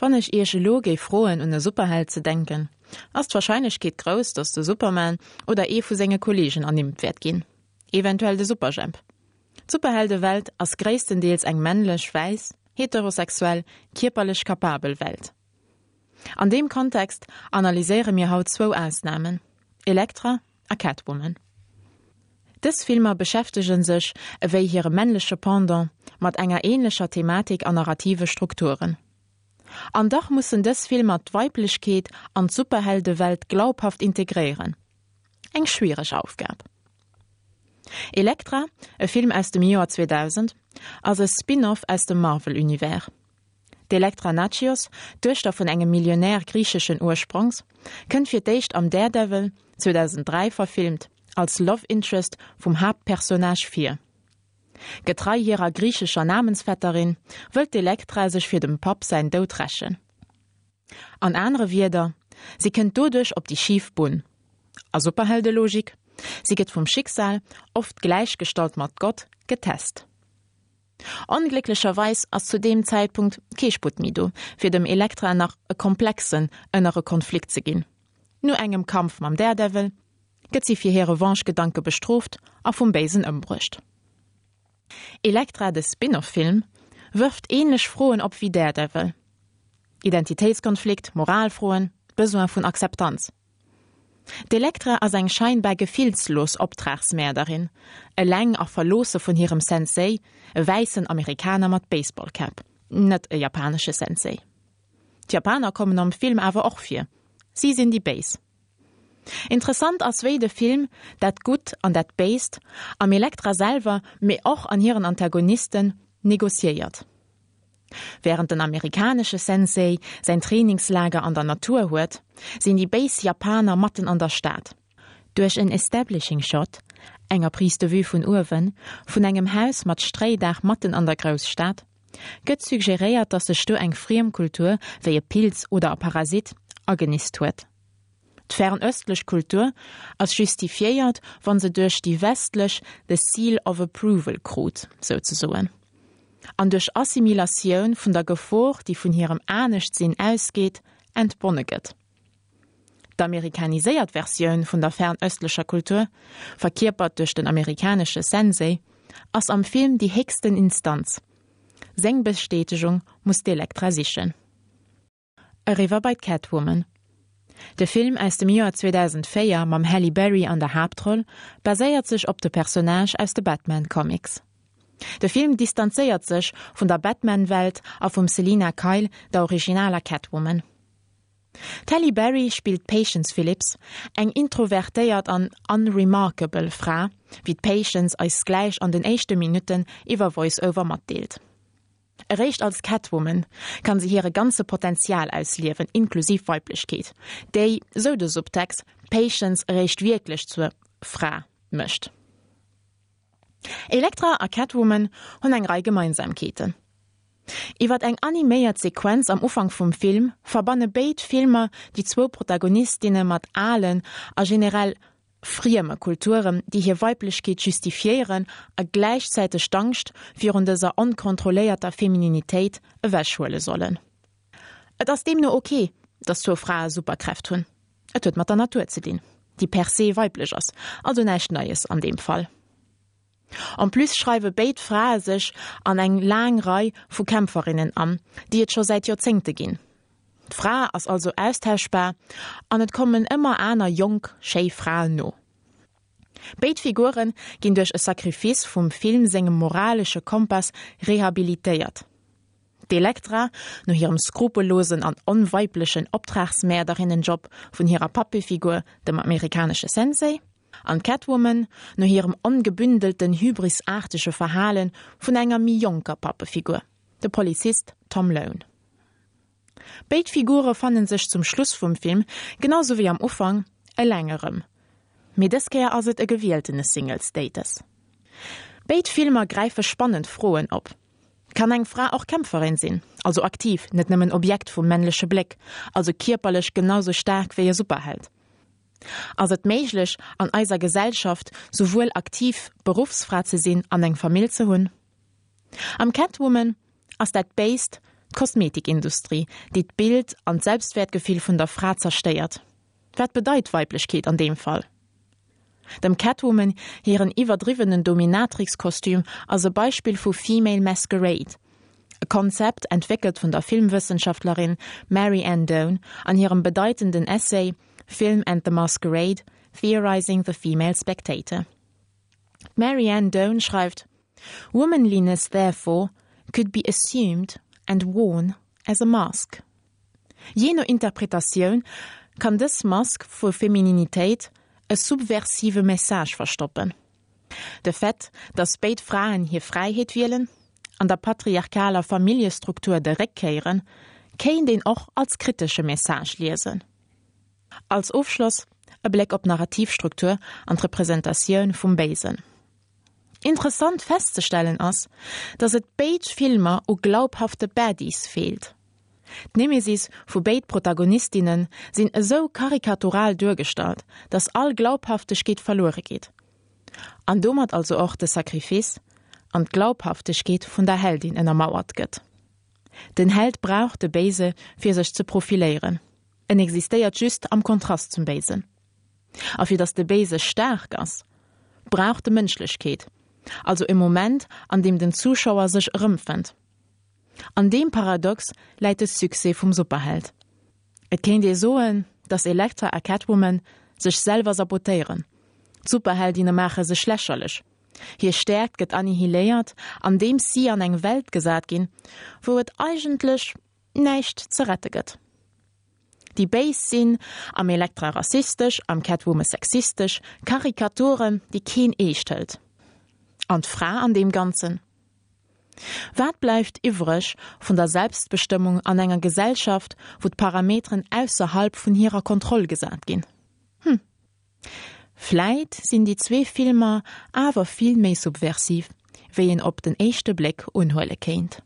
Wann ech Iech elo géif froen un e Superheld ze denken, ass d'Warscheinlechkeet grouss, datt de Superman oder ee vu senge Kolleegen ernimmt wäert ginn. Eventuell de Superjhemp. D'Superheldewelt ass gréisstendeels eng männlech, wäiss, heterosexuell, kierperlech kapabel Welt. An deem Kontext analyséiere mir haut zwou Ausnamen, Elektra a Catwoman. Dës Filmer beschäftege sech, ewéi hire männleche Pendant, mat enger änlecher Thematik an narrative Strukturen. An dach mussen dës Filmer d'Weiblechkeet an d'Superheldewelt glaubhaft integréieren. Eng schwiereg Aufgab. Elektra, e Film aus dem Joer 2000, ass e Spin-off aus dem Marvel-Univers. D'Elektra Natchios, d'Duechter vun engem Millionär griicheschen Ursprongs, kënnt fir d'éischt am Daredevil, 2003 verfilmt, als Love Interest vum Haaptpersonnage vir. Getrei hirer griichescher Namensvetterin, wëllt d'Elektra sech fir dem Papp säin Doud rächen. An anere Wierder, si kënnt doduerch op déi schif Bunn. A Superheldelogik, si gëtt vum Schicksal, oft gläichgestallt mat Gott, getest. Onglécklecherweis ass zu deem Zäitpunkt kee Sputt méi do, fir dem Elektra nach e komplexen ënnere Konflikt ze ginn. No engem Kampf mam Daredevil gëtt si fir hir Revanche-Gedanke bestrooft a vum Béisen ëmbruecht. Elektra, de Spin-off-Film, wërft änlech Froen op wéi Daredevil, Identitéitskonflikt, Moralfroen, Besoin vun Akzeptanz. D'Elektra ass eng scheinbar gefillslos Optragsmäerderin, eleng a verloosse vun hirem Sensei, e wäissen Amerikaner mat Baseballcap, net e japanesche Sensei. D'Japaner kommen am Film awer och vir, si sinn déi Béis. Interessant ass wéi de Film dat Gutt an dat Béist am Elektra selwer, mee och an hiren Antagonisten, negociéiert. Wärend den amerikanesche Sensei säin Trainingslager an der Natur huet, sinn déi béis Japaner matten an der Stad. Duerch en Establishing Shot, enger Prise de vue vun uewen, vun engem Haus mat Stréidaach matten an der Grousstad, gëtt suggeréiert, datt sech do eng friem Kultur, wéi e Pilz oder e Parasit, agenist huet. D'fernöstlech Kultur ass justifiéiert, wann se duerch déi westlech the seal of approval krut, souzesoen, an duerch Assimilatioun vun der Gefor, déi vun hirem Aneschtsinn ausgeet, entbonne gëtt. D'amerikaniséiert Versioun vun der fernöstlecher Kultur, verkierpert duerch den amerikanesche Sensei, ass am Film déi héchsten Instanz. Seng Bestätegung muss d'Elektra sichen. Eriwwer bei d'Catwoman. De Film aus dem Joer 2004 mam Halle Berry an der Haaptroll baséiert sech op de Personnage aus de Batman Comics. De Film distanzéiert sech vun der Batman-Welt a vum Selina Kyle, der originaler Catwoman. D'Halle Berry spillt d'Patience Phillips, eng introvertéiert an unremarkable Fra, wéi d'Patience eis gläich an den éischte Minutten iwwer Voice-Over matdeelt. Eréischt als Catwoman kann se hire ganze Potenzial ausliewen, inklusiv Weiblechkeet, déi, sou de Subtext, d'Patience eréischt wierklech zur Fra mécht. Elektra a Catwoman hunn eng Rei Gemeinsamkeeten. Iwwer eng animéiert Sequenz am Ufank vum Film verbanne béid Filmer déi zwou Protagonistinne mat alen a generell frieme Kulturen, déi hir Weiblechkeet justifiéieren a gläichzäiteg d'Angscht virun dëser onkontrolléierter Femininitéit ewechhuele sollen. Et ass deemno ok, datt zwou Frae Superkräft hunn. Et huet mat der Natur ze dinn, déi per se weiblech ass, also näischt Neies an deem Fall. En plus schreiwe béid Frae sech an eng laang Rei vu Kämpferinnen an, déi et scho säit Joerzéngte ginn. D'Fra ass also austauschbar an et kommen ëmmer aner jonk, schéi Fraen no. Béid Figure ginn duerch e Sacrifice vum Film sengem moralesche Kompass rehabilitéiert. D'Elektra, no hirem skrupellosen an onweiblechen Optragsmäerderinnenjob vun hirer Pappefigur, dem amerikanesche Sensei, an d'Catwoman, no hirem ongebündelten, hybrisaartege Verhale vun enger méi jonker Pappefigur, de Polizist Tom Lone. Béid Figure fanne sech zum Schluss vum Film, genau sou wéi am Ufank, eleng erëm. Mee dës Kéier ass et e gewieltene Single-Status. Béid Filmer gräife spannend Froen op, Kann eng Fra och Kämpferin sinn, also aktiv, net nëmmen Objekt vum männleche Bléck, also kierperlech genau sou staark wéi e Superheld? Ass et méiglech, an eiser Gesellschaft souwuel aktiv Beruffsfra ze sinn an eng Famill ze hunn? Am Catwoman ass dat Béist. D'Kosmetikindustrie, déi d'Bild an d'Selbstwäertgefill vun der Fra zerstéiert. Wat bedeit Weiblechkeet an deem Fall? Dem Catwoman hiren iwwerdriwwenen Dominatrix-Kostüm ass e Beispill vu Female Masquerade, e Konzept entwéckelt vun der Filmwëssenschaftlerin Mary Ann Doane an hirem bedeitenden Essay Film and the Masquerade, Theorizing the Female Spectator. D'Mary Ann Doane schreift, Womanliness therefore could be assumed and worn as a mask. Jee no Interpretatioun kann dës Mask vu Femininitéit e subversive Message verstoppen. De Fait, datt béid Fraen hir Fräiheet wielen an der patriarchaler Familljestruktur de Réck kéieren, kéint een och als kritesche Message liesen. Als Ofschloss e Bléck op d'Narrativstruktur an d'Representatioun vum Béisen. Interessant festzestellen ass, datt et béid Filmer u glaubhafte Baddies feelt. D'Nemesis vu béid Protagonistinne sinn esou karikatural duergestallt, datt all Glaubhaftegkeet verluere geet. An domat also och de Sacrifice an d'Glaubhaftegkeet vun der Heldin ënnermauert gëtt. Den Held brauch de Béise fir sech ze profiléieren. En existéiert just am Kontrast zum Béisen. A fir datt de Béise staark ass, brauch de Mënschlechkeet, also e Moment, an deem den Zuschauer sech erëmfënnt. An deem Paradox läit de Succès vum Superheld. Et kéint ee soen, datt Elektra a Catwoman sech selwer sabotéieren, d'Superheldinne maache sech lächerlech, hir Stäerkt gëtt annihiléiert, andeems si an eng Welt gesat ginn, wou et eigentlech näischt ze rette gëtt. Déi Béis sinn am Elektra rassistesch, am Catwoman sexistesch, Karikaturen, déi keen eescht hëlt. An d'Fra an deem Ganzen? Wat bleift iwwreg vun der Selbstbestëmmung an enger Gesellschaft, wou d'Parameteren ausserhalb vun hirer Kontroll gesat ginn? Hm. Vläit sinn déi zwee Filmer awer vill méi subversiv, wéi een op den éischte Bléck unhuele kéint.